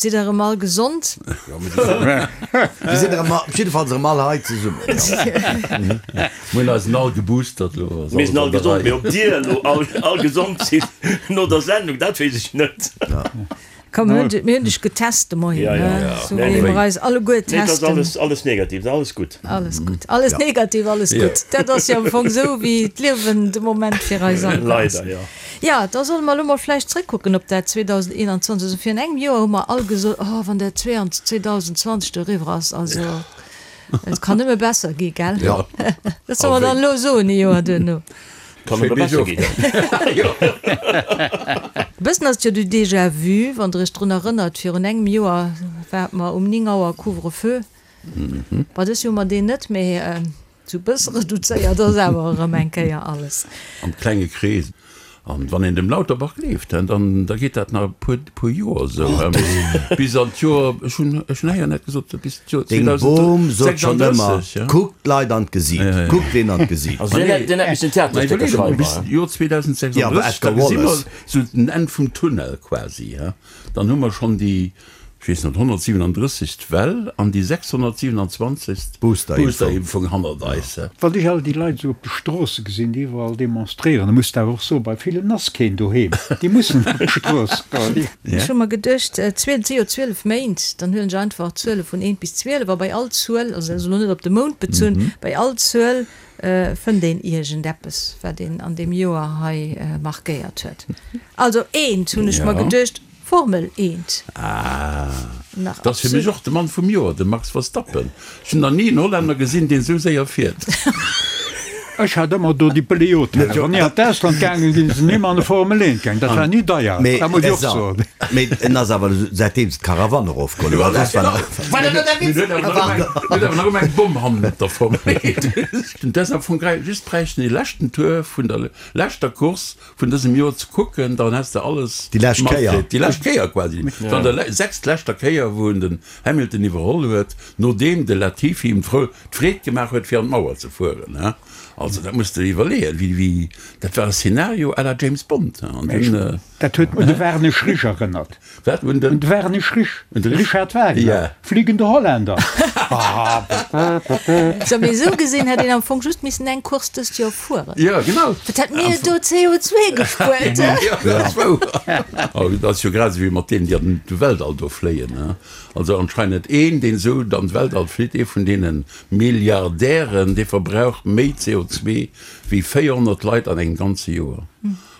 Sidd der erëm all gesond? Jo, mir sinn erëm all, jiddefalls erëm all hei zesummen, jo. Mir hunn eis all geboostert elo. Mir sinn all gesond, mee ob dir elo all gesond sidd no der Sendung, dat weess ech net. Komm, mir hunn dech getest de Moien, ne? Sou wéi mer eis alleguer testen. Nee, et ass alles negativ, et ass alles gutt. Alles gutt, alles negativ, alles gutt. Dat ass jo am Fong sou, wéi d'Liewen de Moment fir eis all ass. Leider, jo. Jo, da solle mer elo mol vläicht zrëckkucken op dat 2021. Also virun engem Joer hu mer all gesot, Oh, wann dat 2020 do eriwwer ass, also et kann nëmme besser gi, gell? Jo. Dat solle mer dann elo soen, ee Joer duerno. Kann nëmme besser ginn. E bëssen ass et jo du Déjà vu, wann Der Iech drun erënnert, virun engem Joer ware mer um 9 Auer Couvre-feu. Bon, dës Joer hu mer deen net, mee sou e bësse reduzéiert ass awer erëm eng Kéier alles. Am klenge Krees. An wann een dem Lauterbach gleeft, dann da geet dat nach e puer, puer Joer esou, bis an d'Joer, ech hunn, ech hunn héieren, hat gesot, bis d'Joer Deng Bom sot schonn ëmmer, 2036, kuckt d'Leit an d'Gesiit, kuckt deenen an d'Gesiit. Also deen hätt, deen hätt missen Theaterstécker schreiwen. Bis d'Joer 2036, Ja, awer da Edgar gesi mer Wallace. esou den Enn vum Tunnel quasi, dann hu mer schonn déi, ech weess net, 137. Well an déi 627. Boosterimpfung hannert eis. Wann ech all déi Leit esou op de Stroosse gesinn, déi iwwerall demonstréieren, da muss de awer och soen, bei villen ass keen doheem, déi mussen op d'Strooss goen. Ech hu mer geduecht, et si jo 12 Méint, dann huelen ech einfach d'Zuele vun eent bis 12 a bei all Zuel, also dat ass elo net op de Mount bezunn, bei all Zuel fënnt een iergendeppes, wat een an deem Joer hei markéiert huet. Also eent hunn ech mer geduecht, Formel eent. Ah, Nach dat ass fir mech absolut. och de Mann vum Joer, de Max Verstappen. Ech hunn nach ni en Hollänner gesinn, deen esou séier fiert. Ech hat ëmmer do déi Beleotellen. Wann ech an d'Ausland gaangen sinn, sinn ëmmer an de Formel eent gaangen. Dat war ni deier, Mee dat muss ech och soen. Mee en ass awer säitdeem se d'Karawann erofgeholl hunn, well soss war Mir huet awer nach ëmmer eng Bomm hannert der Formel eent. Dat ass am Fong just bräichten dee leschten Tour vun der leschter Course vun dësem Joer ze kucken, dann häss de alles Déi lescht Kéier. matkritt. Déi lescht Kéier quasi. Wann der le sechst leschter Kéier, wou en den Hamilton iwwerholl huet, nodeem de Latifi him d'Frou d'Freed gemaach huet, fir an d'Mauer ze fueren, he. Also dat muss de iwwerleeën, wéi, wéi, dat war e Szenario à la James Bond, he. An dunn. Dat huet un de Werner Schrisch erënnert. Wat? Un den? Un de Werner Schrisch. Un de Richard Wagner. Ja. Fliegende Holländer. Sou, mee esou gesinn hätt een am Fong just missen eng Course dëst Joer fueren. Ja, genau. Wat hätt mir do CO2 gespuert, he? Ja, dat ass wouer. Oh, dat ass jo grad esou wéi mat deenen, déi an de Weltall do fléien, he. Also anscheinend een, deen esou an d'Weltall flitt, ee vun deene Milliardären, dee verbraucht méi CO2 wéi 400 Leit an engem ganze Joer.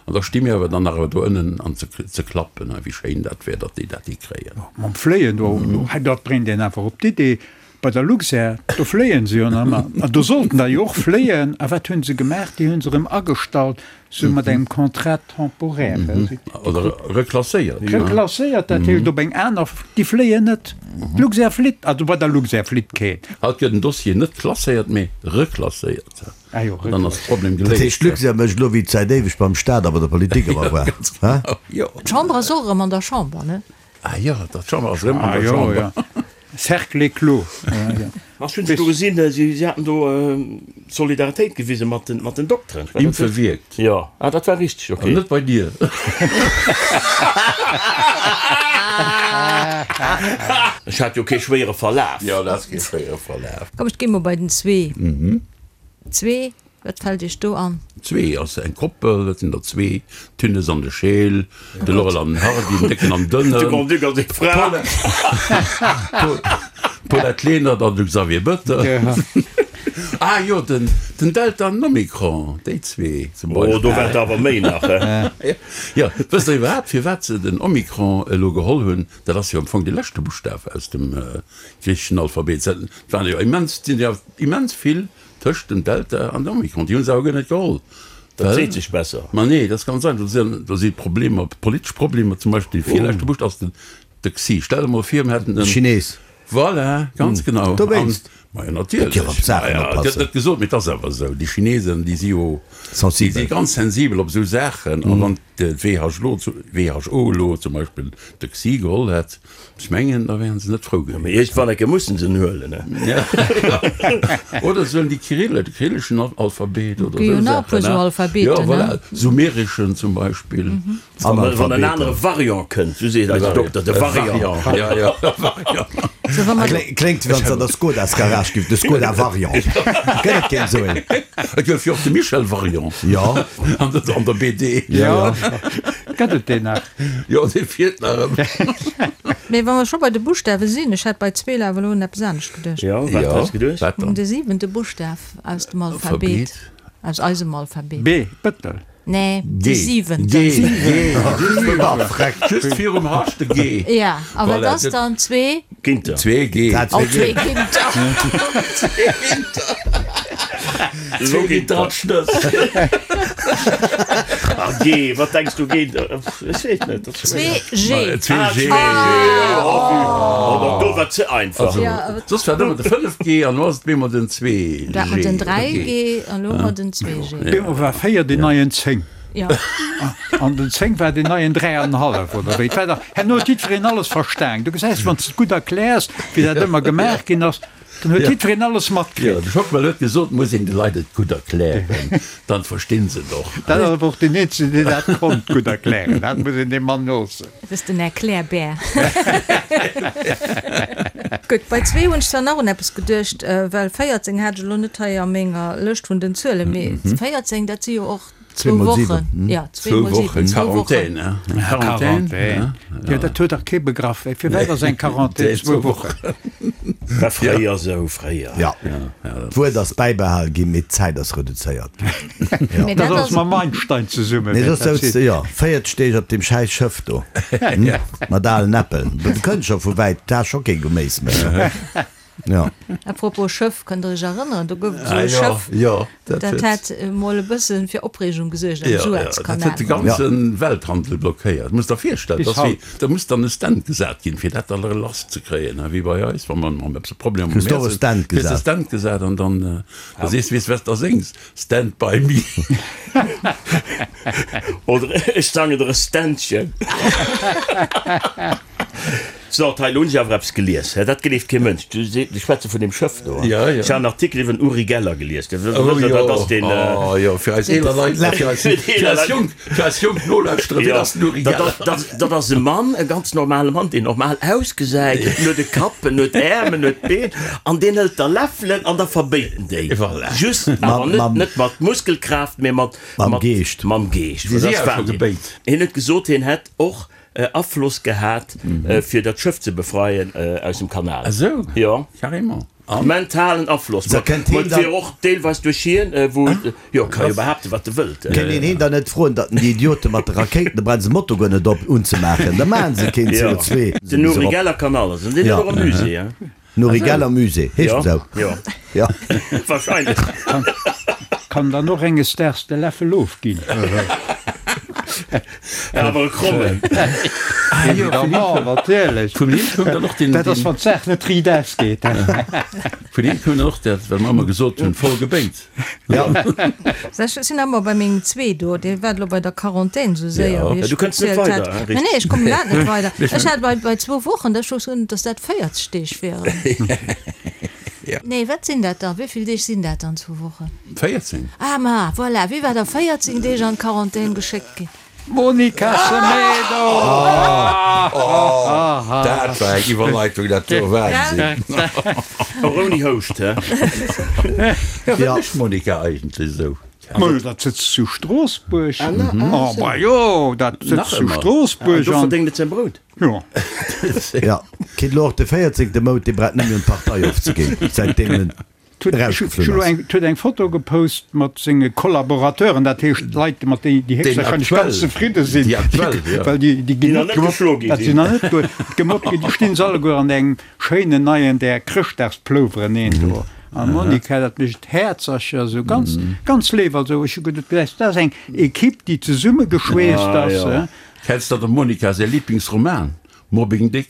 An da sti mir awer dann nach do ënnen an ze klappen, wéi schéin dat wär, datt déi dat hikréien. Mam Fléien do, dat bréngt een einfach op d'Idee, bei der Luxair, do fléien se jo nach ëmmer. An do sollten der jo och fléien. A wat hu se gemaach? Déi hu se erëm agestallt, sou mat engem Contrat temporaire. Oder reklasséiert. Reklasséiert, dat heescht op eng aner, déi fléien net. D'Luxair flitt, also bei der Luxair flitt keen. Haut gëtt en Dossier net klasséiert, mee reklasséiert. Ah jo, An dann ass de Problem Dat heescht, geléist. d'Luxair mécht elo, wéi et säit éiweg beim Staat a bei der Politik ëmmer war, hä? Jo. D'Chamber ass och erëm an der Chamber, ne? Ah jo, d'Chamber ass erëm an Ah der jo, Chamber. jo. Cercle clos. Ech hunn se do gesinn, si haten do Solidaritéit gewise mat den, mat den Dokteren. Impfe wierkt. Jo, ah dat war richteg, okay. An net bei dir. Ech hat jo kee schwéiere Verlaf. Jo, du has kee schwéiere Verlaf. Komm, ech gi mol bei den zwee. Zwee, wat fält Iech do an? Zwee ass eng Koppel, dat sinn der zwee, d'Tünnes an de Scheel, de Laurel an den Hardy, den Décken an Dënnen. De Grand-Duc a seng Fra. D'Paulette Lenert an de Xavier Bettel. Ah jo, den Delta an den Omikron, déi zwee zum Beispill. Oh, do war et awer méi nach, he? Jo, wësst Der iwwerhaapt, firwat se den Omikron elo geholl hunn? Dat ass jo am Fong de leschte Buschtaf aus dem griicheschen Alphabet. Et waren jo immens, et sinn jo immens vill Tëscht dem Delta an dem Omikron. Déi hu se awer guer net geholl. Dat seet sech besser. Ma nee, dat ass ganz einfach. Do si Problemer, politesch Problemer. Zum Beispill dee virleschte Buscht ass den de Xi. Stell der mol vir, mir hätten en. Chines. Voilà, ganz genau. Dowéinst. Majo natierlech. Dierf op d'Saachen Maja, et gëtt oppassen. net gesot, mee et ass awer esou. Déi Chinesen, déi si jo, déi si Sensibel. ganz sensibel op esou Saachen. A wann d'WHO WHO elo zum Beispill de Xi geholl hätt, ech mengen, da wären se net frou Mee gewiescht. iergendwann eng Kéier mussen se en huelen, ne? Oder se huelen déi Kyrill, de kyrilleschen Alphabet oder Gi jo esou nach e puer Saachen, esou ne? Jo, Alphabeten, ne? voilà, sumereschen zum Beispill. Wann en anere Variant kënnt, sou seet eise Dokter, de Variant. Ja, ja, Variant. So, wa mer Kléngt wéi wann s an der Skodas Garage giff, de Skoda Variant. Gëtt et keen esou een? Et gouf jo och de Michel Variant. Jo. An der, an der BD. Jo. Gëtt et deen nach? Jo, dee fiert nach ëmmer. Mee wa mer scho bei de Buschtawe sinn, ech hat bei zwee awer elo un eppes anescht geduecht. Jo, wat hues geduecht? Wat dann? De siwente Buschtaf aus dem Alphabet, aus eisem Alphabet. B, Bëttel. Nee, G. de siwenten. G, G, just virum H de G. Ja, a wat Voilà, ass dann zwee? Ginter. Zwee G. Dat Oh, zwee zwee G. Ginter. Zwee Ginter. Zwee Ginterschnëss. Ah, G, wat denks du Ginter? Ech weess net. Dat ass Zwee G. Zwee Ah, G. zwee G. Oh, oh, do war ze einfach. Also, Ja, awer- soss war et ëmmer de 5G an elo ass et bemol den 2G. Dat mat den 3G an elo mat den 2G. Bemol war 4 deen neien 10. Ja. An den 10 war deen neien 3,5 oder wéi. Et war dach, herno huet jiddwereen alles verstan. Du gesäis, wann s de et gutt erkläers, wéi dat ëmmer gemaach ginn ass, dann huet jiddwereen alles Jo, matkritt. de Schockmel huet gesot, muss een de Leit et gutt erklären, dann verstinn se et och. Dat ass awer och deen eenzegen, deen dat konnt gutt erklären. Dat muss een deem Mann loossen. Dat ass den Erklärbär. Gutt, bei zwee hunn ech zwar nach un eppes geduecht, well 14 hat ech elo net hei a menger Lëscht vun den Zuelen, mee 14, dat si jo och zwou Wochen. Jo, zwee mol siwen, zwou Wochen. Quarantän, hein? Quarantän, jo, dat huet dach kee begraff. Firwat ass eng Quarantän zwou Wochen? War fréier esou, fréier. Jo, d'Wuert ass bäibehal ginn, mee d'Zäit ass reduzéiert ginn. Mee Dat dat ass ass. mam Einstein zesummen, Mee wäert soss dat souz sinn. de jo 40 Deeg op deem schäiss Schëff do, mat alen Äppel. Du kënns scho vu wäit, du has scho kee Geméis méi. Jo. À propos Schëff, kënnt der iech erënneren, do gouf et esou Ah e jo, Schëff, jo, dat dat huet. hat emol e bësse fir Opreegung gesuergt am Jo, jo, dat Suezkanal. huet de ganze Welthandel blockéiert. Muss der virstellen, Bis dass wéi, haut. da muss dann e Stand gesat ginn, fir dat da lass ze kréien, wéi bei eis, wa mer mam eppes e Problem am Kriss Meer och e sinn, Stand kriss de gesat. Stand gesat an dann, da sees de, weess wat s da séngs, Stand by me. Oder ech sangen der e Ständchen. So, hei, elo hunn ech awer eppes gelies, hä, dat gleeft kee Mënsch. Du se, ech schwätze vun deem Schëff do. Ja, ja. Ech hat en Artikel iwwer den Uri Geller gelies. Du Oh wësst, jo, dat ass deen, oh jo, fir eis eeler Leit, fir eis, fir eis jonk, fir eis jonk Nolauschterer, wien Ja, ass den Uri dat Geller? ass, dat, dat ass e Mann, e ganz normale Mann, deen normal ausgesäit, en huet e Kapp, en huet Äerm, en huet Been, an deen hëlt da Läffelen an da verbéit en déi. Voilà. Just, awer Mam, net, mam. net mat Muskelkraaft, mee mat, Mam mat, Geescht. Mam Geescht. Si Dat si ass awer scho Wahnsinn. gebéit. Hien huet gesot, hien hätt och Afloss gehat fir dat Schëff ze befreien aus dem Kanal. Ah sou, Jo. carrément. An? Mentalen Afloss. Sa kënnt Ma heen et dann. wier och deelweis duerch hien, wou, jo, ka jo behaapten, wat e wëllt. Kënnt een heen dann net froen, datt en déi Idiote mat de Rakéiten, da brauche se Moto guer net op unzemaachen, da maachen se keen Jo. CO2. Den Uri Geller kann alles. An deen huet och e Musée, hein. Den Uri Geller Musée, heescht Jo, en sou? jo. Jo. Wahrscheinlech. Kann dann och enges Daags de Läffel ofginn. Awer e krommen. Évidemment, natierlech. Vun him koum dann och den. Dat ass, wann d'Saach net riit ausgeet. Vun him koum dann och dat, wat mer ëmmer gesot hunn, voll gebéit. Ja. Ech sinn ëmmer bei mengem zwee do, dee war elo bei der Quarantän esou séier, wéi ech Du kënns net gezielt weider, hat. hein, Nee, nee, ech kommen iwwerhaapt net weider. Ech Ech hat bei, bei zwou Wochen, da ech gesot, dass dat 40 Deeg wieren. Nee, wat sinn dat da? Wéi vill Deeg sinn dat dann, zwou Wochen? 14. Ah, ma voilà, wéi war der 14 Deeg an d'Quarantän geschéckt ginn? Monica Semedo! Dat war eng Iwwerleitung, dat do, Wahnsinn! Och ouni Houscht, hä? Ja, wat Ja. mécht d'Monica eigentlech esou? Ma dat sëtzt zu Stroossbuerg. Oh, ma jo, dat Nach sëtzt zu ëmmer. Stroossbuerg Do an. verdéngt et säin Brout. Jo. Ja. Kritt elo och de 14. Mount, dee brauch net méi un d'Partei ofzeginn, säitdeem en erausgeflunn ass. Huet eng Foto gepost mat senge Kollaborateuren, dat heescht Leit, mat déi déi héchstwahrscheinlech ganz zefridde sinn, well déi déi ginn net gemobbt, dat sinn nach net gemobbt ginn, déi stinn se alleguer an engem schéinen neien där Chrëschtdagsplouveren een do. An d'Monica, dat mécht Häerzercher, esou ganz ganz léif. Also ech hu geduet, dat ass eng Equipe, déi zesummegeschweesst ass. Kenns de der Monica säi Liblingsroman? Mobbing Dick.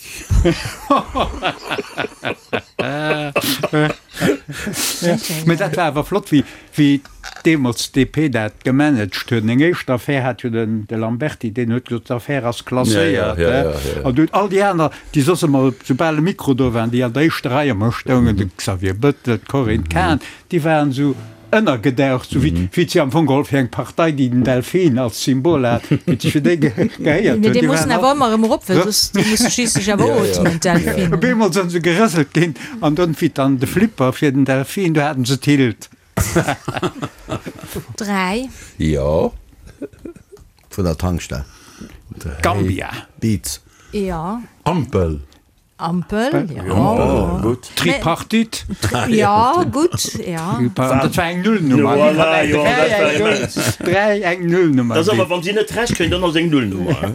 Mee dat war awer flott, wéi, wéi deemools d'DP dat gemanagt huet. Eng éischt Affär hat jo den, de Lamberty, deen huet gesot, d'Affär ass klasséiert. Ja, ja, ja, ja. An dunn all déi aner, déi soss ëmmer, soubal e Mikro do waren, déi an der éischter Rei ëmmer stoungen, de Xavier Bettel, d'Corinne Cahen, déi waren esou ënnergedaucht, sou wéi wéi si am Fong geholl fir eng Partei, déi den Delfin als Symbol hat, wéi si fir déi gehéiert Mee hunn. dee Déi mussen waren awer all ëmmer erëm erop, well soss dee muss schliisslech awer ootmen, d'Delfinen. Op eemol sinn se gerëselt ginn an dunn wéi dann de Flipper fir den Delfin, du haten se d'Hild. 3. Jo. Vun der Tankstell. Gambia. Beats. Jo. Ampel. Ampel, jo. Gutt. Tripartite. Jo, gutt, jo. Dat war eng Nullnummer. Voilà, jo, dat war immens. 3 eng Nullnummer. Dat ass awer, wann si net Recht kréien, dann ass eng Nullnummer.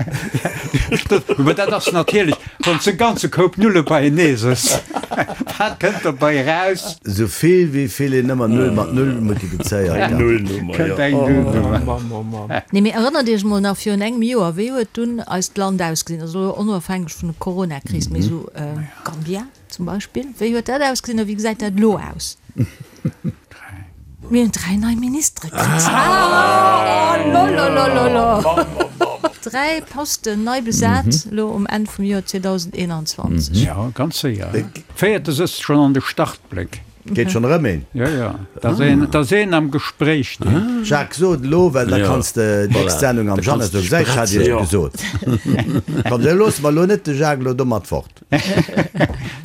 Mä dat ass natierlech, wann s de e ganze Koup Nulle beienee sëss, wat kënnt dobei eraus? Esou vill wéi vill een ëmmer Null mat Null multiplizéiert. Eng Nullnummer, jo. Kënnt eng Nullnummer. Nee, mee erënnert Iech mol nach virun engem Joer, wéi huet dunn eist Land ausgesinn? Also elo onofhängeg vun der Coronakris, mee esou Gambia zum Beispill, wéi huet dat ausgesinn a wéi gesäit dat elo aus? Mir hunn 3 nei Ministere kritt. Oh lololololo! 3 Posten nei besat elo um Enn vum Joer 2021. Jo, ganz séier. Véierte sëtzt schonn an de Startbléck. Geet schonn erëm een. Jo, jo, da ass een, da ass een am Gespréich. Deen. Jacques, so et elo, well da kanns de d'nächst Sendung am Jeannette soen, Gesäis, ech hat iech et gesot. Komm, da loosse mer elo net de Jacques elo domat fort.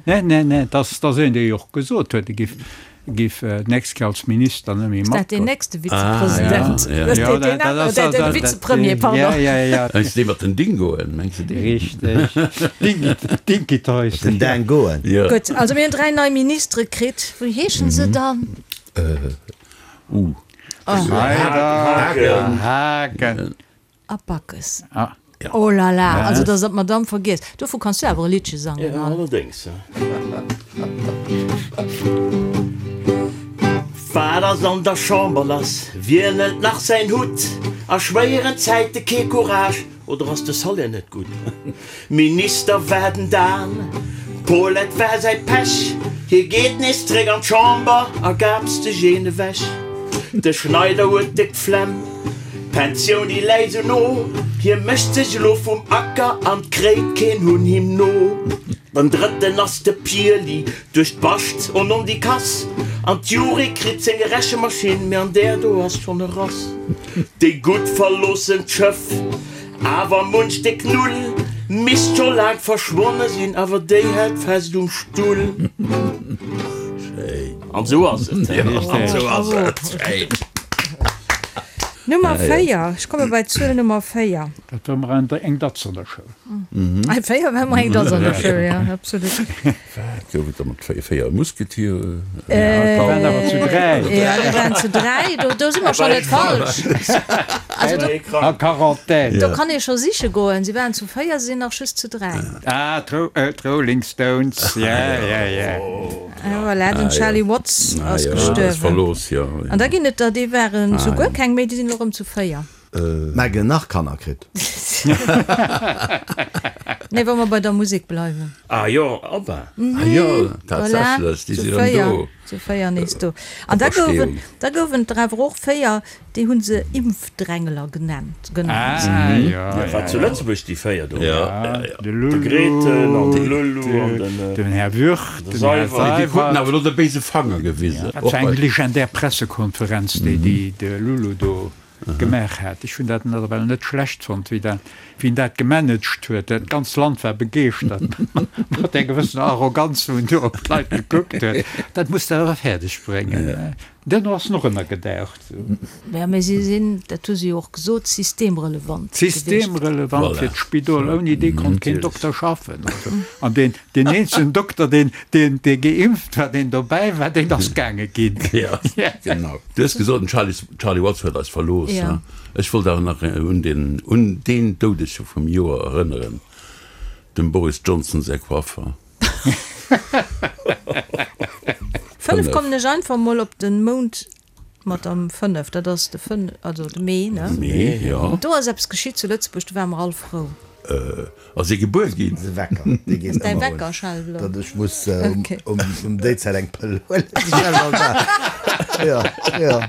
Nee, nee, nee, dat ass een, dee jo och gesot huet, e giff Giff d'nächst Kéier als Minister net méi Ass dat deen matgoen. nächste Vizepresident? Ah, ja. Jo, dat dat ass Den dat Vizepremier, pardon. Ja, ja, ja. Meinst du dee mat den Dingoen? Mengs du deen? Richteg. Dinky, Dinky Toys. Den Dingoen. Ja. Gutt, also mir hunn 3 nei Ministere kritt. Wéi heeschen se dann? Uh. Schneider, Haagen. A Backes. Ah. Oh la la, also dass der d'Madame vergiesst. Dovu kanns du awer e Liddche sangen, Ja, Anne. allerdéngs. Wat ass an der Chamber lass? Wien hëlt nach säin Hutt? A schwéieren Zäite kee Courage, oder ass de Salaire net gutt? Minister war den Dan, d'Paulette war säi Pech, hie geet nees zréck an d'Chamber a gaapst sech een ewech. De Schneider huet déck d'Flemm, d'Pensioun déi läit sou no, hie mécht sech elo vum Acker an 't kréit keen Hunn him no. Den drëtten ass de Pirli, duerch d'Bascht on on déi Kass, an d'Juri kritt seng Rechemaschinn, mee an där do ass schonn e Rass. Déi Gutt verloossen d'Schëff. Awer munch déck Null misst scho laang verschwonne sinn, awer déi hält fest um Stull. An sou ass et. An sou ass et. Nummer 4, ech komme bei d'Zuel Nummer 4. Dat war mer eng Datz an der Schoul. 4 war mer eng Datz an der Schoul, jo, absolut. Wat gouf et da mat 4 Musketiere? Déi waren awer zu 3. Jo, déi waren zu 3, do, do si mer schonn net falsch. Also do. A Quarantän. Do kann ee scho siche goen. Si waren zu 4, si sinn nach just zu 3. Ah, d'Rolling Stones, ja, ja, ja. Voilà, den Charlie Watts ass gestuerwen. An da ginn et der, déi waren zu guer keng méi, déi sinn elo erëm zu 4. Meghan nach Kanner kritt. Nee, wa mer bei der Musek bleiwen. Ah jo, ABBA. Ah jo, tatsächlech, déi sinn erëm do. Zu 4 nees do. An da gouwen, da gouwen et der awer och 4, déi hu se Impfdrängler genannt, genannt. Ah jo, Ja, war zu Lëtzebuerg déi 4 do. Ja, ja. De De Grethen an de Lulu an den. Den Här Würth, De den Här Seywert. Déi kruten Seywert. awer elo de béise Fanger gewisen. Dat war eng legendär Pressekonferenz, déi déi de Lulu do gemaach hat. Ech hunn dat nawell net schlecht fonnt, wéi dat, wéi en dat gemanagt huet. Dat ganzt Land war begeeschtert, mat där gewëssener Arroganz, wou en do op d'Leit gekuckt huet. Dat muss de awer fäerdeg bréngen. Duerno ass en och ënnergedaucht. Ja, mä si sinn, dat hu se jo och gesot, systemrelevant gewiescht. Systemrelevant fir d'Spidol. Ouni dee konnt keen Dokter schaffen. An deen, deen eenzegen Dokter, deen, deen, dee geimpft war, deen dobäi war, deen ass gaange ginn. Ja, genau. Du hues gesot, den Charlie, Charlie Watts huet eis verlooss. Ja. Ech wollt awer nach un den, un deen Doudege vum Joer erënneren, dem Boris Johnson säi Coiffer. 5 kommen ech einfach mol op den Mount mat am 5, dat ass de 5, also de Mee, ne? Mee, jo. Do ass eppes geschitt zu Lëtzebuerg, do ware mer all frou. Ass ee gebuer ginn. De Wecker, dee geet Däi ëmmer un. Wecker schellt elo. Datt ech muss Okay. um um déi Zäit eng Pëll huelen. Jo, jo.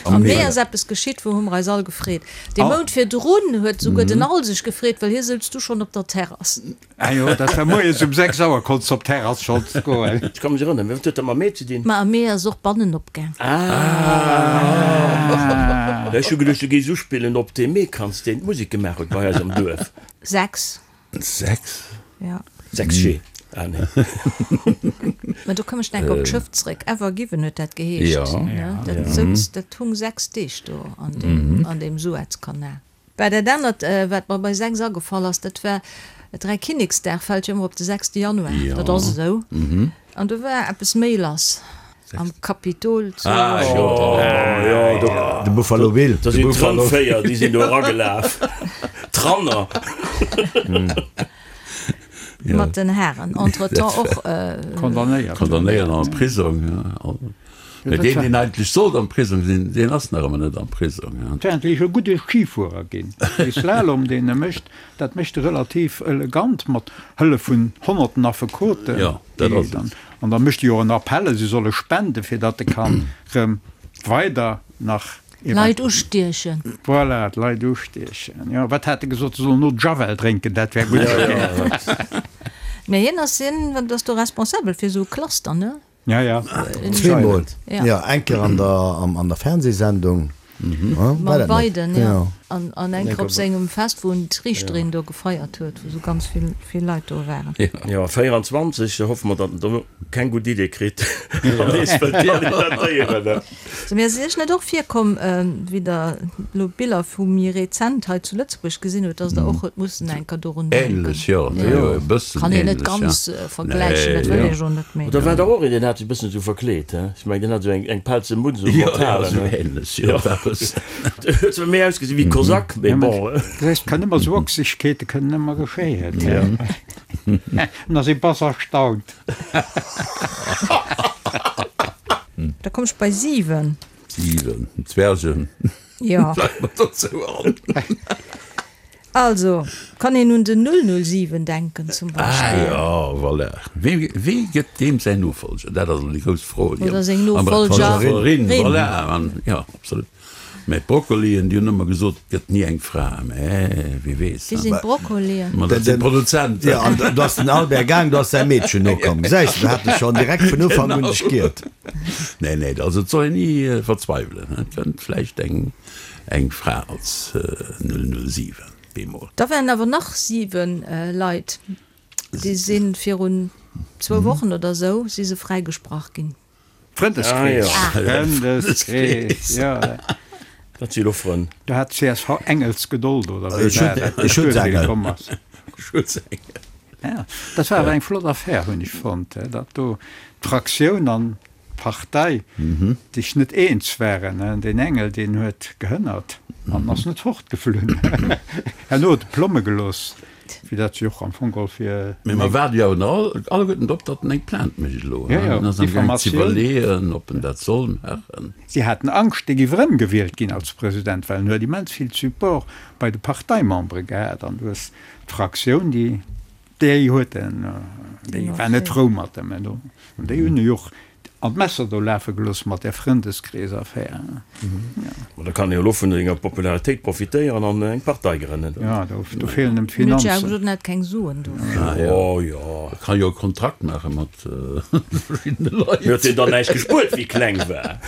Am Mee ass eppes geschitt, wou hu mer eis all gefreet. Dee Mount virdrun huet souguer den Al sech gefreet, well hie souz du schonn op der Terrass. Ah jo, dat war moies um 6 Auer konns de op d'Terrass schonns goen. Ech ka mech erënneren. Wat huet dat mam Mee ze dinn? Ma am Mee ass och bannen opgaang. Ah! Ech hu geduecht, du géifs uspillen op dee Meekranz, deen d'Musek gemaach huet bei eis am Duerf. 6. 6? Ja. 6 G. Ah nee. Mä do koum ech enk op d'Schëff zréck. Ever Given huet dat geheescht. Ja. Dat souz, dat hung 6 Deeg do an deem, an deem Suezkanal. Bah, dat anert, wat mer bei 6 agefall ass, dat war, Dräikinneksdag fält jo ëmmer op de 6. Januar, dat ass esou. An do war eppes méi lass am Kapitol zu Washington. Ah jo, De Buffalo Bill. Da sinn d'Rëndvéier, déi sinn do eragelaf. D'Ranner. Mat den Haren. Entretemps och. Condamnéiert. Condamnéiert an de Prisong. Mä deen, deen eigentlech sollt am Prisong sinn, deen ass nach ëmmer net am Prisong. Et wär eigentlech e gudde Schifuerer ginn. Dee Slalom, deen e mécht, dat mécht e relativ elegant mat Hëllef vun honnerten Affekoten. Jo, dat ass et. An da mécht e jo och en Appell, si solle spenden, fir datt e kann erëm weider nach. Leit ustiechen. Voilà, d'Leit ustiechen. Jo, wat hat e gesot, se sollen no Javel drénken, dat wär gutt gewiescht. Mä hien ass, hien ass do responsabel fir esou e Cluster, ne? Ja, ja. Zweemol, jo, eng Kéier an der, an der Fernsehsendung, war Mam dat net? Biden, jo. An, an eng Kéier op sengem Fest, wou en d'Riichterin do gefeiert huet, wou sou ganz vill, vill Leit do waren. Jo, 24, da hoffe mer, datt en do keng gutt Idee kritt an nees wëllt kandidatéieren. Sou, mee ass et Iech net och virkomm, wéi Der elo Biller vu méi rezent hei zu Lëtzebuerg gesinn hutt, dass Der och hutt mussen eng Kéier dorun denken? Ähnlech, jo, jo, e bëssen Kann een net ähnlech, ja. ganz vergläichen, dat wëll ech och net, mee. Da war der och een, deen hat sech e bëssen esou verkleet, he? Ech mengen, deen hat esou eng, eng pelze Mutz un, Jo, mat jo, Haren, esou he? ähnlech, jo, eppes. Huet zwar méi ausgesinn wéi Kosak, mee bon. Et kann ëmmer esou Ochsegkeete kënnen ëmmer geschéien, he? An ass ee bass erstaunt. Da komm ech bei 7. 7, Zwergen. Jo. Fällt mer dozou an. Also, kann een un den 007 denken zum Beispill. Ah jo, voilà. Wee, wee gëtt deem säin Nofolger? Dat ass elo déi grouss Fro, déi Oder seng am Nofolgerin. Voilà, an, jo, absolut. Mä d'Broccolien, déi hunn ëmmer gesot, et gëtt ni eng Fra. Mä wie weess, Wie sinn d'Broccolien? Ma dat sinn d'Produzenten. Jo, an do ass den Albert gaang, do ass säi Meedchen nokomm. Gesäis de, do hat e schonn direkt vun Ufank un dech giert. Nee, nee, also et soll een ni verzweiwelen. Et kënnt vläicht eng, eng Fra als 007 bemol. Da waren awer nach 7 Leit, déi si virun zwou Wochen oder esou si se fräigesprach ginn. Frëndeskrees, Frëndeskrees, jo. Dat si lo Frënn. Do hat csv Engelsgedold, oder wéi war dat? E Schutzengel. Schutzengel. Ja, dat war awer eng flott Affär, hunn ech fonnt, datt do d'Fraktioun an d'Partei sech net eens waren. Deen Engel, deen huet gehënnert an ass net fortgeflunn. Herno huet e Plomme gelooss. Wéi dat jo och am Fong geholl fir. Mee mer waarde jo awer alleguerten drop, datt en eng Plainte mécht elo. Jo, jo, En ass am gaang ze Diffamatioun. iwwerleeën, ob en dat soll maachen. Si haten Angscht, dee géif erëmgewielt ginn als President, well en huet immens vill Support bei de Parteimembere gehat. An du hues d'Fraktioun, déi, déi huet en, déi war net frou mat em. An déi hunn e jo och An d'Messer do lafe gelooss mat där Frëndeskrees-Affär. Ma da kann e jo elo vun senger Popularitéit profitéieren an eng Partei grënnen. Jo, do feelen em d'Finanzen. Mir huet jo awer gesot, en hätt keng Suen dofir. Oh jo. E kann jo e Kontrakt maache mat verschiddene Leit. Mee huet deen dann näischt gespuert, wéi kleng war?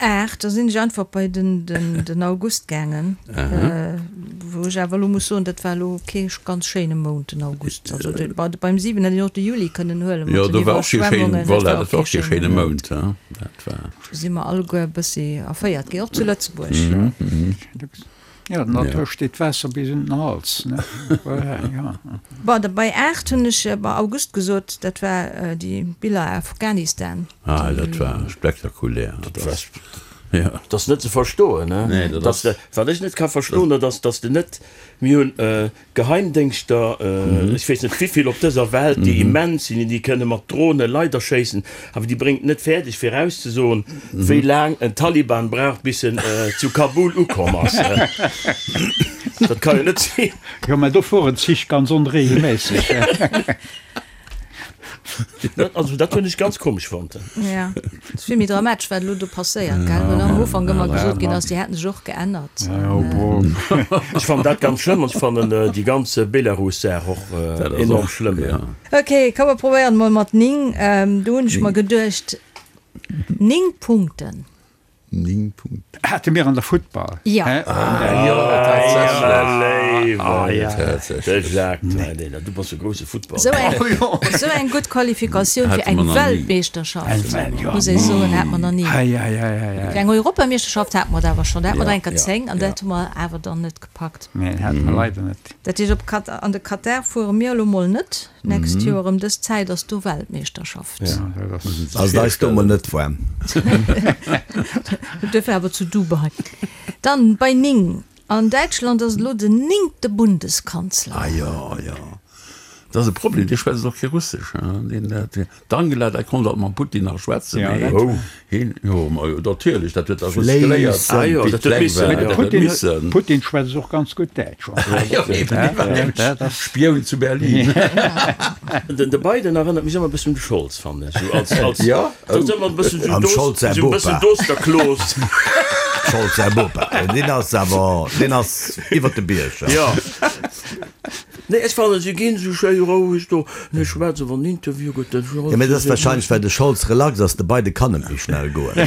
8, da sinn ech einfach bei den August gaangen, wou ech awer elo muss soen, dat war elo kee ganz schéine Mount, den August. Also beim 7 hätt een och de Juli kënnen huelen mat den Iwwerschwemmungen, dat war och kee schéine Mount. Do si mer alleguer e bëssi erféiert ginn, och zu Lëtzebuerg. Jo, der Natur steet d'Waasser bis un den Hals, ne? Voilà, jo. Bon, da bei 8 hunn ech bei August gesot, dat war déi Biller Afghanistan. Ah, dat war spektakulär. Dat war. Dat ass net ze verstoen, ne? Dass de, wat ech net ka verstoen, dat ass, dass de net, mir hunn Geheimdéngschter, ech weess net wivill op dëser Welt, déi immens sinn, déi kënne mat Drone Leit erschéissen, awer déi bréngt net fäerdeg fir erauszesoen, wéi laang en Taliban brauch, bis en zu Kabul ukomm ass. Dat ka jo net sinn. Jo, mä do fueren d'Zich ganz onregelméisseg. Also dat hunn ech ganz komesch fonnt. Ja, et ass vill méi dramatesch, wat elo do passéiert, gell? Well am Ufank ëmmer gesot ginn ass, déi hätten sech och geännert. Ech fannen dat ganz schlëmm an ech fannen déi ganz Belarus-Saach och enorm schlëmm. Ok, komm mer probéieren emol mat 9. Do hunn ech mer geduecht, 9 Punkten. 9 Punkten. Hate mir an der Futtball. Ja. Ah jo, tatsächlech. Ah jo, de Jacques, du bass e grousse Futtballer. Esou eng gutt Qualifikatioun fir eng Weltmeeschterschaft, muss ech soen, hat mer nach ni. Fir eng Europameeschterschaft hate mer et awer schonn, da hate mer der eng Kéier 10 an dat hu mer awer dann net gepackt. Nee, hate mer leider net. Dat heescht, op Kat an de Katar fuere mir elo mol net d'nächst Joer. Ëm dës Zäit ass do Weltmeeschterschaft. Ass et eis do mol net waarm. Duerfir awer zu Dubai. Dann bei 9, An Däitschland ass et elo den néngte Bundeskanzler. Ah jo, jo. Dat ass e Problem, dee schwätzt och kee Russesch, deen dat. D'Angela, dat konnt alt mam Putin nach schwätzen, mee hien, jo, ma jo, natierlech, dat huet da just geléiert, wéi et kleng war, dat huet missen. Putin schwätzt och ganz gutt Däitsch. Jo, eben, dee war nämlech Spioun zu Berlin. Den de Biden erënnert mech ëmmer e bëssen un de Scholz, fannen ech, esou als, als, Jo, dat ass ëmmer e bëssen esou Am Scholz säi esou e Bopa. bëssen Dosterklos. Scholz säi Bopa, deen ass awer, deen ass iwwert de Bierg, jo. Nee, ech fannen se ginn sou schéi roueg do, ne schwätzen wann Interview gëtt den Jo, mee dat ass wahrscheinlech well de Scholz relax ass, de Biden kann net méi schnell goen.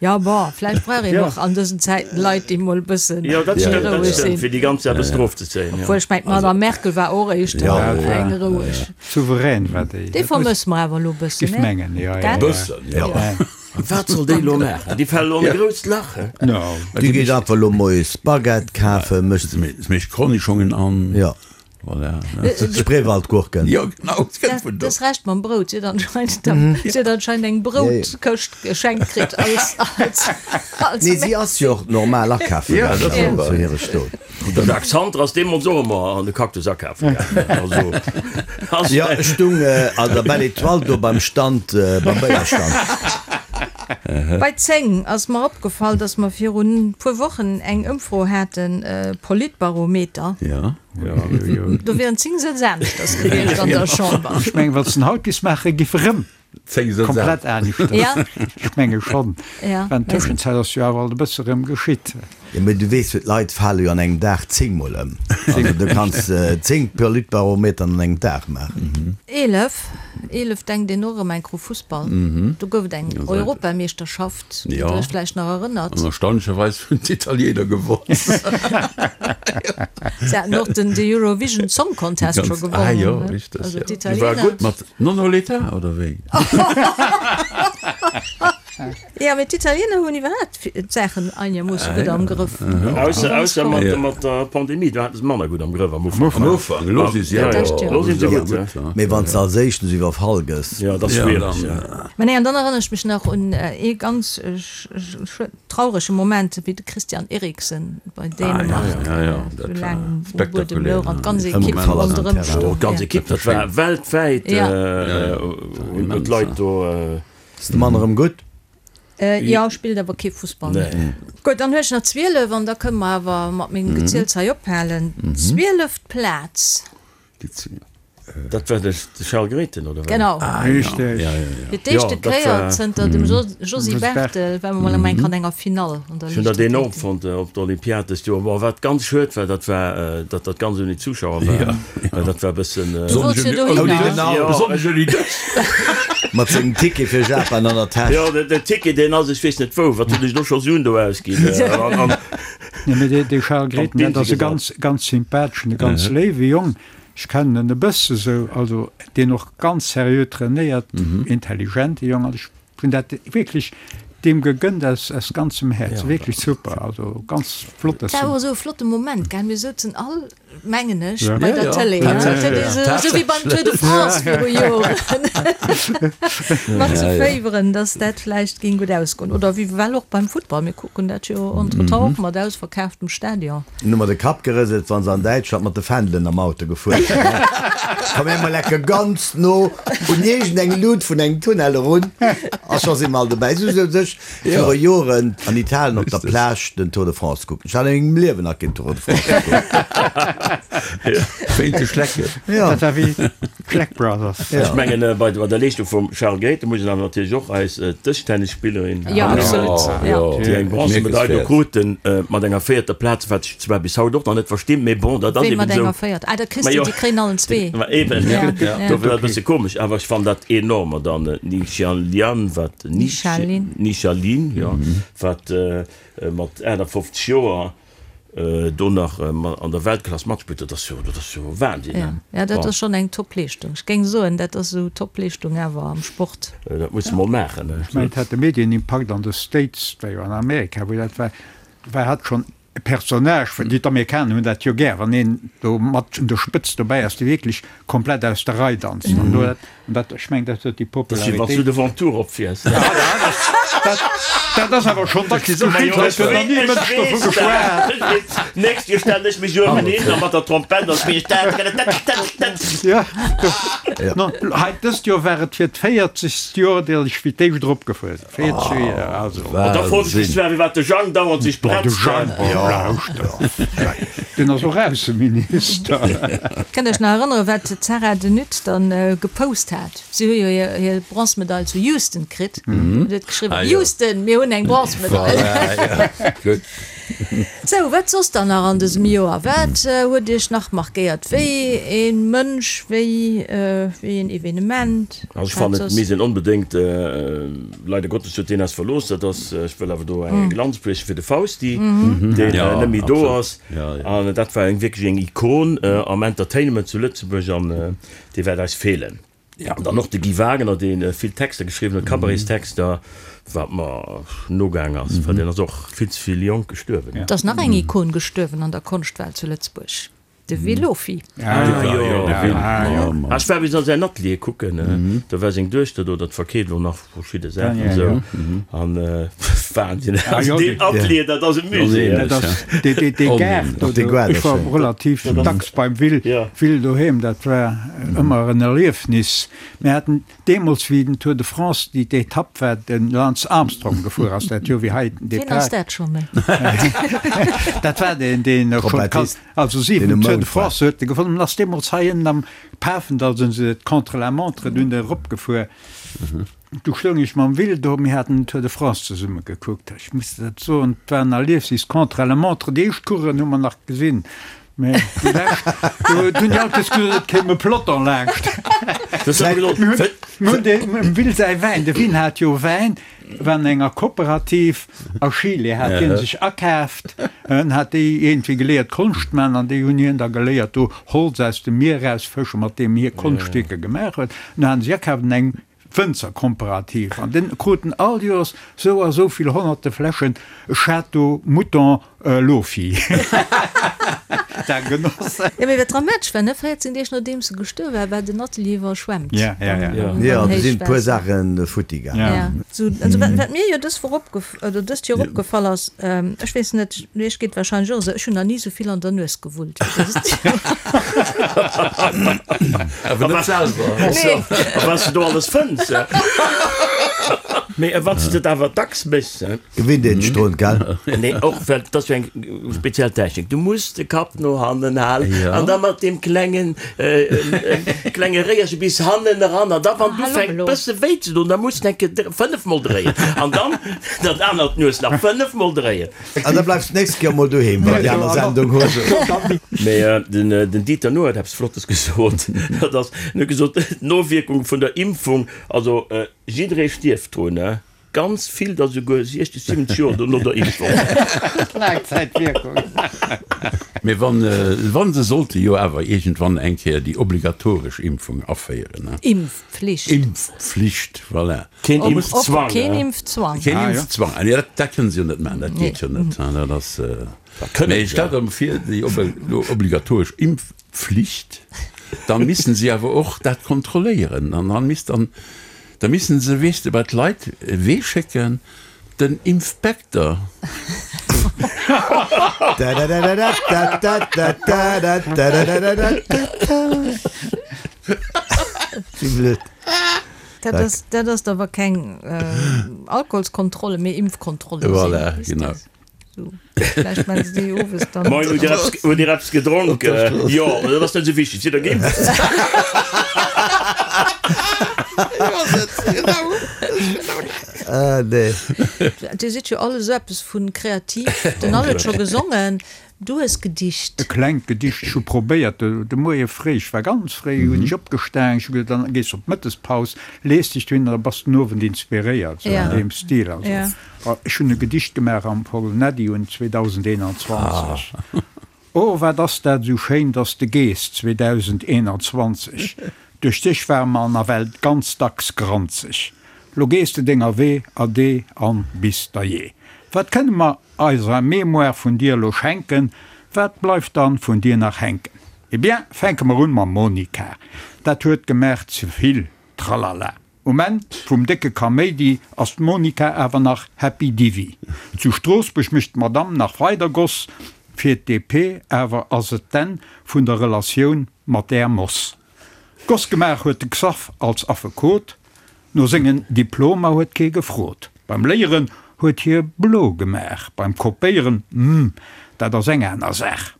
Jo, bon, vläicht brauch een och an dësen Zäiten Leit, déi mol e bëssen Jo, dat stëmmt, dat roueg stëmmt, sinn. fir déi ganz Saach e bëssen erofzezéien, jo. Obwuel ech mengen, d'Madame Merkel war och éischter eng roueg. Souverän war déi. Déi vermësse mer awer elo e bëssen, Giff ne? mengen, jo, jo. Gell? Bëssen, jo. Wat soll déi elo maachen? Déi fält elo an e grousst Lach, he? No. Déi geet einfach elo moies Baguette kafen, mécht. Se mécht Kornischongen an. Jo. Voilà. Spreewaldgurken. Jo, genau, et kënnt vun do. Dës Rescht mam Brout, si huet anscheinend, si huet anscheinend eng Broutkëscht geschenkt kritt als, als, als. Nee, si ass jo och normal akafe gaangen zu hire Stot. De Jacques Santer ass deemools och ëmmer an de Cactus akafe gaangen. Also, ass. Jo, ech stung an der Belle Etoile do beim Stand, beim Béierstand. Bei 10 ass mer opgefall, dass mer virun puer Wochen eng Ëmfro haten, Politbarometer. Jo. Do wieren 10 Sëtz aneschters gewiescht an der Chamber. Ech mengen, wat se haut giss maachen, giff erëm komplett aneschters. Ja. Ech menge schonn. Ja. Well an Tëschenzäit ass jo awer alt e bësse rëm geschitt. Jo, mee du weess jo, d'Leit fale jo an engem Dag zéngmol ëm. Also du kanns 10 Politbarometern an engem Dag maachen. 11, 11 denkt een och erëm enk u Fussball. Do gouf et eng Europameeschterschaft, déi Der Iech vläicht nach erënnert. An erstaunlecherweis hunn d'Italiener gewonnen. Se haten och den Eurovision Song Contest scho gewonnen. Ah jo, richteg. Also War d'Italiener. gutt mat Non ho l'età, oder wéi? Jo, mee d'Italiener hunn iwwerhaapt d'Saachen einermoosse gutt am Grëff. Ausser, ausser mat, mat der Pandemie, do haten se manner gutt am Grëff am Ufank. Am Ufank, elo si se awer, Elo si se gutt, ja. Mee wann s de als éischten esou iwwerfall gëss. Jo, dat ass schwiereg, ja. Mä nee, an dann erënnere ech mech nach un ee ganz traurege Moment, wéi de Christian Eriksen bei Dänemark esou laang um Buedem louch an d'ganz Ekipp ronderëm stoung. D'ganz Ekipp, dat war weltwäit, hunn d'Leit do. Ass de Mann erëm gutt? Jo, spillt awer kee Fussball méi. Gutt, dann hu ech nach 12 an da kënne mer awer mat mengem Geziels hei ophalen. Zwieleft Plaz. Dat war de Charles Grethen, oder wéi? Genau. Richteg. Fir d'éischte Kéier zënter dem Josy Barthel war mer mol eng Kéier an enger Finall an der Ech hunn dat enorm Liichtathletik. fonnt op der Olympiad dëst Joer. Bon, wat ganz schued war, dat war, datt dat ganz ouni Zuschauer war. Well dat war e bëssen. Du wollts jo dohinner. Besonnesch ouni dech. Mat sengem Ticket fir Japan an der Täsch. Jo, den Ticket, deen ass, ech weess net wou, wat hunn ech do scho Suen do ausginn. Nee, mee dee Charles Grethen, dat ass e ganz, ganz sympatheschen, e ganz léiwe Jong. Ech kennen en e bësse sou, also deen och ganz seriö trainéiert, intelligente Jong. Also ech hunn dat wierklech deem gegënnt aus, aus ganzem Häerz. Wierklech super, also ganz flott, dass Dat war en. och esou e flotte Moment, gell? Mir souzen all. Mengen ech, bei der Tëlee. Esou wéi beim Tour de France viru Joren. Mat ze féiweren, datt dat vläicht géing gutt ausgoen. Oder wéi well och beim Futtball, mir kucken dat jo entretemps och mat ausverkaaftem Stadion. Hunn ëmmer de Kapp gerëselt, wa se an Däitschland mat de Fändelen am Auto gefuer sinn. Komm mir mol lecke ganz no un iergendeng Lut vun engem Tunnel erun a scho si mer all dobäi. Esou souz ech Viru Joren an Italien op der Plage den Tour de France kucken. Ech hat a mengem Liewen nach keen Tour de France gekuckt. Wéint de Schlecken. Dat war wéi d'Schleck Brothers. Ech mengen, bei der Leeschtung vum Charles Grethen muss een awer natierlech och eis Dëschtennisspillerin erwänen, déi eng Bronzemedail do kruten mat enger véierter Plaz, wat ech zwar bis haut och nach net verstinn, mee bon, dat ass eben esou. Wéi mat enger véierter? Ah, dat kriss du, déi kréien allen zwee. Ma eben, dofir war et e bësse komesch, awer ech fannen dat enorm. An dann d'Ni Xianlian, wat Ni Xialin, jo, wat mat 58 Joer do nach an der Weltklass matspillt, dat ass jo, dat ass jo Wahnsinn. Ja, ja, dat ass schonn eng Top-Leeschtung. Ech géing soen, dat ass esou Top-Leeschtung awer am Sport. Dat muss de mol maachen. Ech mengen, et hat de Medienimpakt an de States, dat war jo an Amerika, wou dat war, war hat schonn e Personnage, well déi d'Amerikaner hunn dat jo gär, wann een do mat un der Spëtzt dobäi ass, dee wierklech komplett aus der Rei danzt. An do, an dat, ech mengen, dat huet déi Dat ass wéi wann s du Popularitéit. de Ventoux eropfiers. Dat ass awer schonn dacks geschitt, et huet nach ni e Mënsch dovu geschwat. D'nächst Joer stellen ech mech uewen hin a mat der Trompett a spillen ech tat-tat-tat-tat. Jo, no, hei dëst Joer war et fir d'véierzegst Joer, datt ech fir d'éischt eropgefuer sinn. 40 Joer, also. An da froen ech mech zwar, firwat de Jang dauernd sech Boah, de bretzt. Jang, boah, lauschter. Deen ass och Ausseminister. Kënnt Iech nach erënneren, wat d'Sarah de Nutte dann gepost hat? Si hu jo hir Bronzemedail zu Houston kritt. An huet geschriwwen, Houston, mir hunn eng Bronzemedail. Gutt. Sou, wat soss dann nach an dësem Joer? Wat huet Iech nach markéiert? Wéi ee Mënsch, wéi een Evenement? Also ech fannen, et misst een onbedéngt, leider Gottes huet deen eis verlooss, dat ass, ech wëll awer do eng Lanz brieche fir de Fausti, deen net méi do ass. An dat war eng wierklech eng Ikon am Entertainment zu Lëtzebuerg an dee wäert eis feelen. An dann och de Guy Wagner, dee vill Texter geschriwwen huet, Cabarets-Texter, wat mer nogaang ass, well deen ass och vill ze vill jonk gestuerwen. Et ass nach eng Ikon gestuerwen an der Konschtwelt zu Lëtzebuerg, de Will Lofy. Ah jo, de Will. Ah, ech war bis an säin Atelier kucken, do war seng Duechter do, dat verkeeft elo nach verschidde Saachen esou. An Wahnsinn, also deen Atelier, dat ass e Musée. Dat ass dee Gaart do, ech war relativ dacks beim Will, Will doheem, dat war ëmmer en Erliefnis. Mir haten deemools, wéi den Tour de France, déi d'Etapp war, de Lance Armstrong gefuer ass, dat Joer wéi hei den Wien ass Depart. dat scho méi? Dat war deen, deen schon, also 7 Tour de France huet e gewonnen, ass deemools hei ënnen am Pafendall, sinn se d'Contre-la-montre dunn eropgefuer. Du stoung ech mam Will do, mir haten den Tour de France zesumme gekuckt. Ech muss der dat soen, et war en Erliefnis, Contre-la-montre, déi éischt Coureuren hu mer nach gesinn, mä déi lescht, do hunn déi alt gesot, et kéim e Peloton laanscht. Mir hunn dem Will säi Wäin, de Will hat jo Wäin, war an enger Kooperativ a Chile, hat hie sech akaaft, en hat déi iergendwéi geléiert Konscht man an déi hunn hien da geléiert do Holz aus dem Mier erausfëschen, mat deem hie Konschtwierker gemaach huet. An du haten se akaaft an eng Wënzerkomperativ an den kruten all Joers sou a sou vill honnerte Fläschen Château Mouton Lofi. Dat Genoss. Jo, mee wat dramatesch war, ne, 14 Deeg nodeems e gestuerwe war, war den Atelier iwwerschwemmt. Ja, ja, ja. Jo, do sinn e puer Saache futti gaangen. Ja. Sou, also wat, wat mir jo dës Woch opgef, oder dëst Joer opgefall ass, ech weess net, iech geet wahrscheinlech och esou, ech hunn nach ni esou vill an der Nues gewullt wéi dëst Joer. Awer net selwer. Nee. A wat s de do alles fënns. Mee wann s de et awer dacks méchs. Gewinnt een sech drun, gell? Nee, och well dat ass jo eng speziell Technik. Du muss de Kapp no hannen halen an da mat deem klengen, klenge Réierche bis hannen eran. An da wann et ufänkt bësse wéi ze doen, da muss de eng Kéier fënnefmol dréien an dann dat anert Nues nach fënnefmol dréien. An da bleifs d'nächst Kéier mol doheem, wann déi aner Sendung hues. Mee den Dieter Nuhr huet eppes Flottes gesot. Dat ass, en huet gesot, d'Nowierkung vun der Impfung, also jidderee stierft drun, ne? Ganz vill der souguer 60, 70 Joer dono der Impfung. Laangzäitwierkung. Mee wann, wann se sollte jo awer iergendwann eng Kéier déi obligatoresch Impfung aféieren, ne? Impfpflicht. Impfpflicht, voilà. Keen Impfzwang, Keen Impfzwang. Keen Impfzwang. Ah nee, dat, dat kënnen se jo net maachen, dat geet jo net, dat ass. Mee stellt der vir, déi obligatoresch Impfpflicht, dann missten se awer och dat kontrolléieren an dann misst dann, Da missen se, weess de, bei d'Leit wee schécken? Den Impfpekter. Dat ass, dat ass awer keng Alkoholskontrolle, mee Impfkontrolle. Voilà, genau. Vläicht maachen se déi owes dann. Moien, hutt Dir eppes, hutt Dir eppes gedronk? Jo, mä dat ass net esou wichteg, sidd Der geimpft? Ah, nee. Dir sidd jo all esou eppes vu kreativ. Den Al huet scho gesongen, du hues gedicht. E klengt Gedicht. Ech hu probéiert de Moie fréi, ech war ganz fréi, hunn ech opgestaang, ech hu geduet, dann gees de op d'Mëttespaus, lees dech dohin an da bass den Owend inspiréiert, sou an deem Stil. Also. Ech hunn e Gedicht gemaach am Paul Neddy un 2021. Oh, wat ass dat esou schéin, dass de gees 2021. Duerch dech ware mer nawell ganz dacks granzeg. Lo gees de denger Wee, ade an bis der jee. Wat kënne mer eiser Mémoire vun dir elo schenken, wat bleift dann vun dir nach hänken? Eh bien, fänke mer un mam Monica, dat huet gemaach zevill Tralala. Um Enn vum décke Kaméidi ass d'Monica awer nach Happy Divi. Zu Stroossbuerg mécht d'Madame nach weider Goss fir d'DP, awer ass et d'Enn vun der Relatioun mat där Moss. Goss gemaach huet de Xaph als Affekot, no sengen Diplomer huet kee gefrot. Beim Léieren huet hie blo gemaach, beim Kopéieren, hm, dat ass eng aner Saach.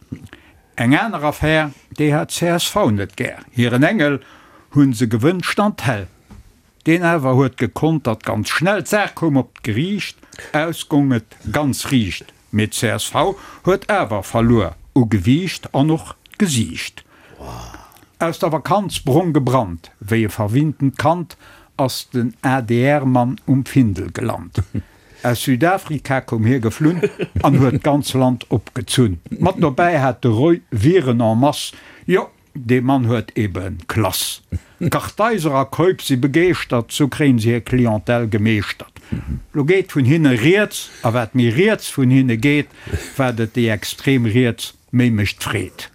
Eng aner Affär, déi hat csv net gär. Hiren Engel hunn se gewënscht an d'Hell. Deen awer huet gekontert ganz schnell. D'Saach koum op d'Geriicht, aus gong et ganz riicht. Mee csv huet awer verluer u Gewiicht an och d'Gesiicht. Aus der Vakanz brong gebrannt, wéi e verwinntent Kand ass den ADR-Mann um Findel gelant. Aus Südafrika koum hie geflunn an huet d'ganz Land opgezunn. Mat dobäi hat de Roy Viren en masse, jo, dee Mann huet ebe Klass. Kartheiser a Keup si begeeschtert, sou kréien se hir Clientèle gemeeschtert. Lo geet vun hinne rieds, a wat méi riets vun hinne geet, wat et déi extrem Riets méi mécht Freed.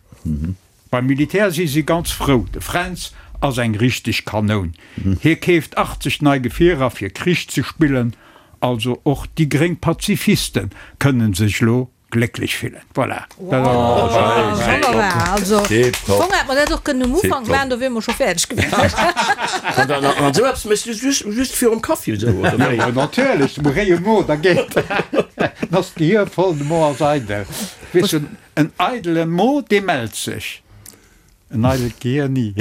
Beim Militär si si ganz frou, de Fränz ass eng richteg Kanoun. Hie keeft 80 nei Gefierer fir Krich ze spillen. Also och déi gréng Pazifiste kënnen sech lo glécklech fillen. Voilà. Wonnerbar. Also am Fong hätt mer dat och kënnen um Ufank maachen, do wiere mer scho fäerdeg gewiescht. An esou eppes méchs du just just virum Kaffi esou, oder wéi? Jo, natierlech, de réie Mo, da geet, dann ass d'Gehir voll, de Mo ass eidel. Weess du, En eidele Mo, dee mellt sech. En eidelt Gehier ni.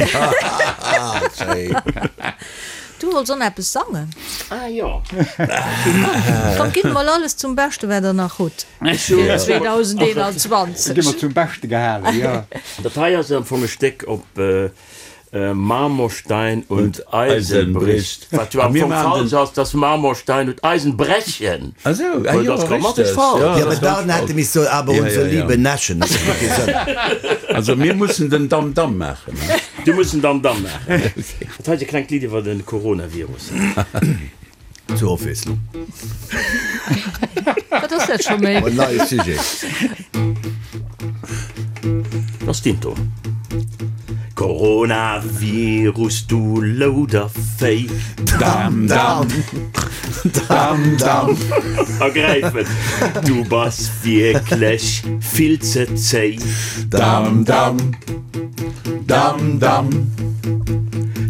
Du wollts och nach eppes sangen? Ah jo. Komm, gitt mol alles zum Beschte wat der nach hutt fir 2021. Gi mer zum Beschte gehalen, jo. Dat hei ass am Fong e Stéck op Marmorstein und Eisenbricht, wat jo am Fong falsch ass, dass Marmorstein und Eisenbrechen. Ah sou, ah jo, dat ass grammatesch richtig. falsch. Jo, mä dann hätte miss soen, aber unsere liebe Neschen, dat huet kee Sënn. Also mir mussen den Dam-Dam maachen, ne? Du muss den Dam-Dam maachen. Dat hei ass e klengt Lidd iwwer de Coronavirus. Zur Ofwiesslung. Wat ass dat scho méi? En neie Sujet. Dat ass d'Intro. Coronavirus, du Loudervéi. Dam, dam, dam, dam. Ergräifen, du bass wierklech vill ze zéi. Dam, dam. Dam, dam.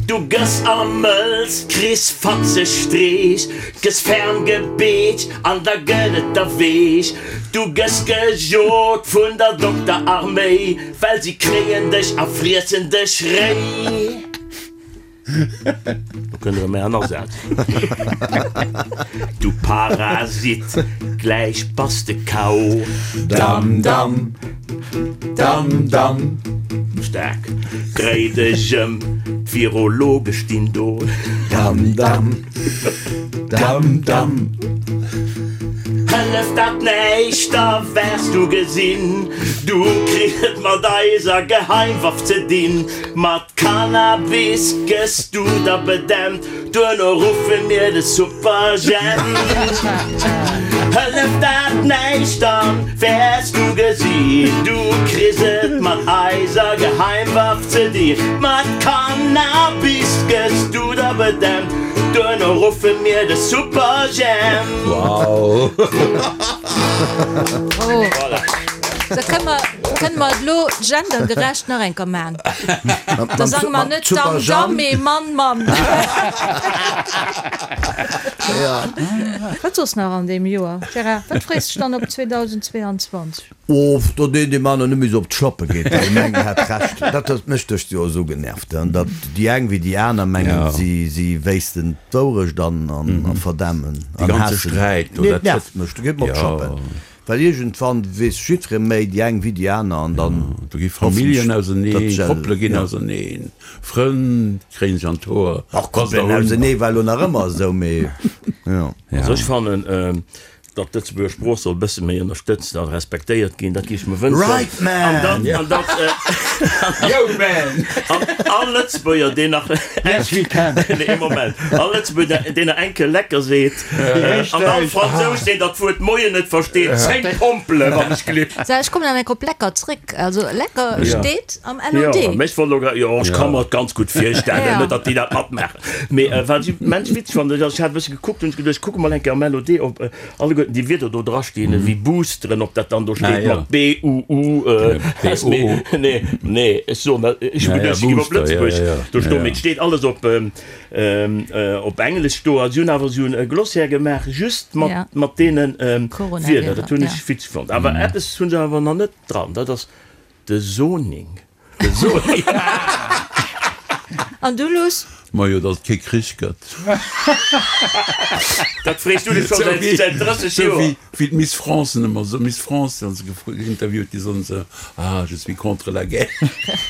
Du gëss ermëlz, kriss fatzeg Streech, gëss ferm gebeetscht an da gëtt et der weech. Du gëss gejot vun der Dokterarméi, well si kréien dech a friessen dech réi. Do kënnt erëm mäi Asaz. Du Parasit, gläich bass de KO. Dam, dam, dam, dam. Staark, dréi dech ëm, d'Virologe stinn do. Dam, dam, dam. Dam, dam. Hëlleft dat näischt, da wäers du gesinn, du kriss et mat eiser Geheimwaff ze dinn. Mat Cannabis gëss du da bedämpt, duerno ruffe mir de Superjhemp. Hëlleft dat näischt, da wäers du gesinn, du kriss et mat eiser Geheimwaff ze dinn. Mat Cannabis gëss du da bedämpt. Duerno ruffe mir de Superjhemp. Wow! Oh. Da kënne mer, kënne mer et elo gendergerecht nach eng Kéier maachen. Da sange mer net Damm, Damm, mee Mann, Mann. Wat soss nach an deem Joer? Gérard, wat frees dech dann op 2022? Oh, datt een deem aneren net méi esou op d'Schlappe geet, well deem engen hat Recht. Dat huet mech dëst Joer esou genervt, datt déi eng wéi déi aner mengen, si wéissten d'Wourecht an verdämmen an haassen. Nee, et nervt mech, do geet mer op d'Schlappen, well iergendwann weess jiddweree méi, déi eng wéi déi aner, an dann Do gi Familljen auserneen, Koppele ginn auserneen, Frënn kréien sech an d'Hoer. Och Koppelen ausenee war elo nach ëmmer esou, mee jo. Also ech fannen, Datt d'Lëtzebuerger Sprooch soll e bësse méi ënnerstëtzt a respektéiert ginn, dat géif ech mer wënschen. Right man! An datt, an datt, Yo man! an all Lëtzebuerger, deen nach, Yes we can! Nee, ee Moment. All Lëtzebuerger, deen nach eng Kéier lecker seet, an all Fransous, deen dat Wuert Moien net versteet, 10 Pompele wann ech glitt. Sou, ech kommen nach eng Kéier op lecker zréck. Also lecker steet am LOD. Jo, mee ech wollt elo grad, jo, ech ka mer et ganz gutt virstellen, net datt déi dat matmaachen. Mee wat ech immens witzeg fannen, dat ass, ech hat e bësse gekuckt, hunn ech geduecht, ech kucke mol eng Kéier am LOD, ob alleguerten déi Wierder do drastinn, ewéi boosteren, ob dat dann do steet mat B U U S. Mee nee, nee, ech soen dat, ech hu geduecht, se ginn op Lëtzebuerg do stoen, mee et steet alles op op Englesch do. A si hunn awer esou e Glossaire gemaach, just mat mat deene Wierder. Dat hunn ech witzeg fonnt. Awer eppes hu se awer nach net dran, dat ass de Zoning. An du Luss? Majo, datt et kee Krich gëtt. Dat frees du dech scho säit 30 Joer. Sou wéi d'Miss France ëmmer sou, Miss France, wann se geïnterviewt gi soen se, ah je suis contre la guerre.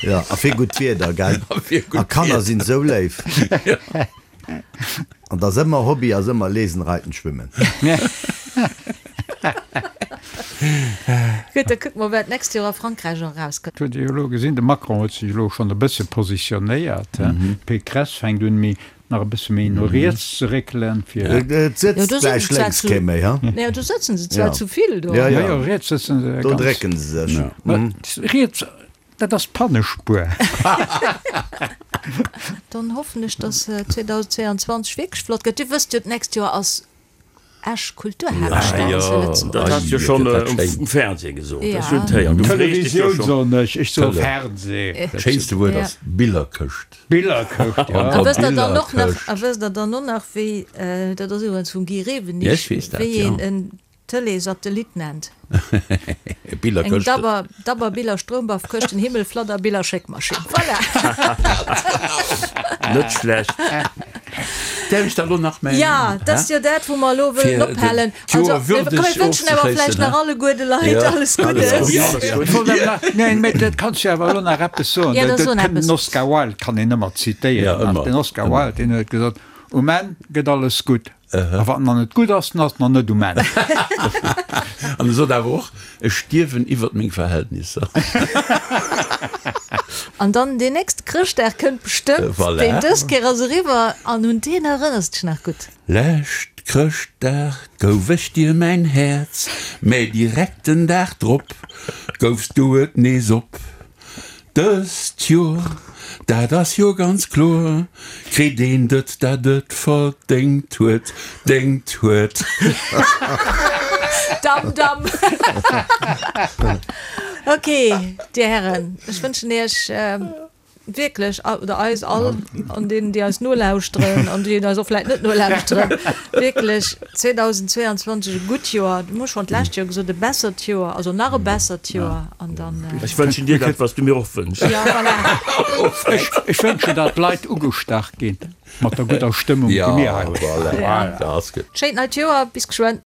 Jo, a fir gutt Wieder, gell? A fir gutt Wieder. A Kanner sinn sou léif. An 't ass ëmmer, Hobby ass ëmmer lesen, reiten, schwimmen. Gutt, da kucke mer, wat d'nächst Joer a Frankräich erauskënnt. Huet Dir jo elo gesinn, de Macron huet sech elo schonn e bësse positionéiert. D'Pécresse fänkt un, méi, nach e bësse méi no riets ze réckelen, fir. Et sëtzt gläich lénks kee méi, ha? Jo, do sëtzen se zwar zu vill do. Jo, jo, riets sëtzen se ganz. Do drécken se sech. Riets. Dat ass d'Pannespuer. Dann hoffen ech, dass 2022 wierklech flott gëtt. Dir wësst jo, d'nächst Joer ass Esch Kulturhaaptstad zu Lëtzebuerg. Dat has du jo schonn um Fernseh gesot. Ech hunn et héieren. Du frees dech jo Televisioun schonn. soen ech, ech soe Fernseh. Dat schéinste Wuert ass Billerkëscht. Billerkëscht, jo. A wësst der dann och nach, a wësst der dann och nach, wéi, dat ass iwwregens vum Guy Rewenig, wéi een en Tëlee-Satellit nennt. Eng dabber, dabber Biller Stroumbaffkëschten Himmel Fladder Biller Schéckmaschinn. Voilà! Net schlecht. Däerf ech da lo nach mäin. Ja, dat ass jo dat, wou mer elo wëllen ophalen. Also, komm, mir wënschen awer vläicht nach alleguer de Leit alles Guddes. Neen, mä dat kanns du awer elo nach eppes soen. Ja, da so nach eppes. Den Oscar Wilde kann een ëmmer zitéieren. Den Oscar Wilde, deen huet gesot, Um Enn gëtt alles gutt. A wann en nach net gutt ass, dann ass en nach net um Enn. An e sot awer och, Ech stierwen iwwert meng Verhältnisser. An dann deen nächste Chrëschtdag kënnt bestëmmt, Voilà. deen dës Kéier ass eriwwer, an un deen erënners dech nach gutt. Lescht Chrëschtdag gouf ech dir mäin Häerz, mä direkt den Dag drop goufs du et nees op. Dëst Joer, dat ass jo ganz kloer, kritt een det, dat et verdéngt huet, déngt huet. Dam, dam. Ok, Dir Hären, ech wënschen Iech wierklech, oder eis all, an deenen, déi eis nolauschteren an déi eis och vläicht net nolauschteren, wierklech 2022 e gutt Joer, du hu schonn d'lescht Joer gesot, e bessert Joer, also nach e bessert Joer an dann. Ech wënschen dir dat, wat s du mir och wënschs. Ja, voilà. Ech wënschen, datt d'Leit ugestach ginn mat der gudder Stëmmung, déi mir hei hunn. Ja, voilà. Schéint neit Joer, bis geschwënn.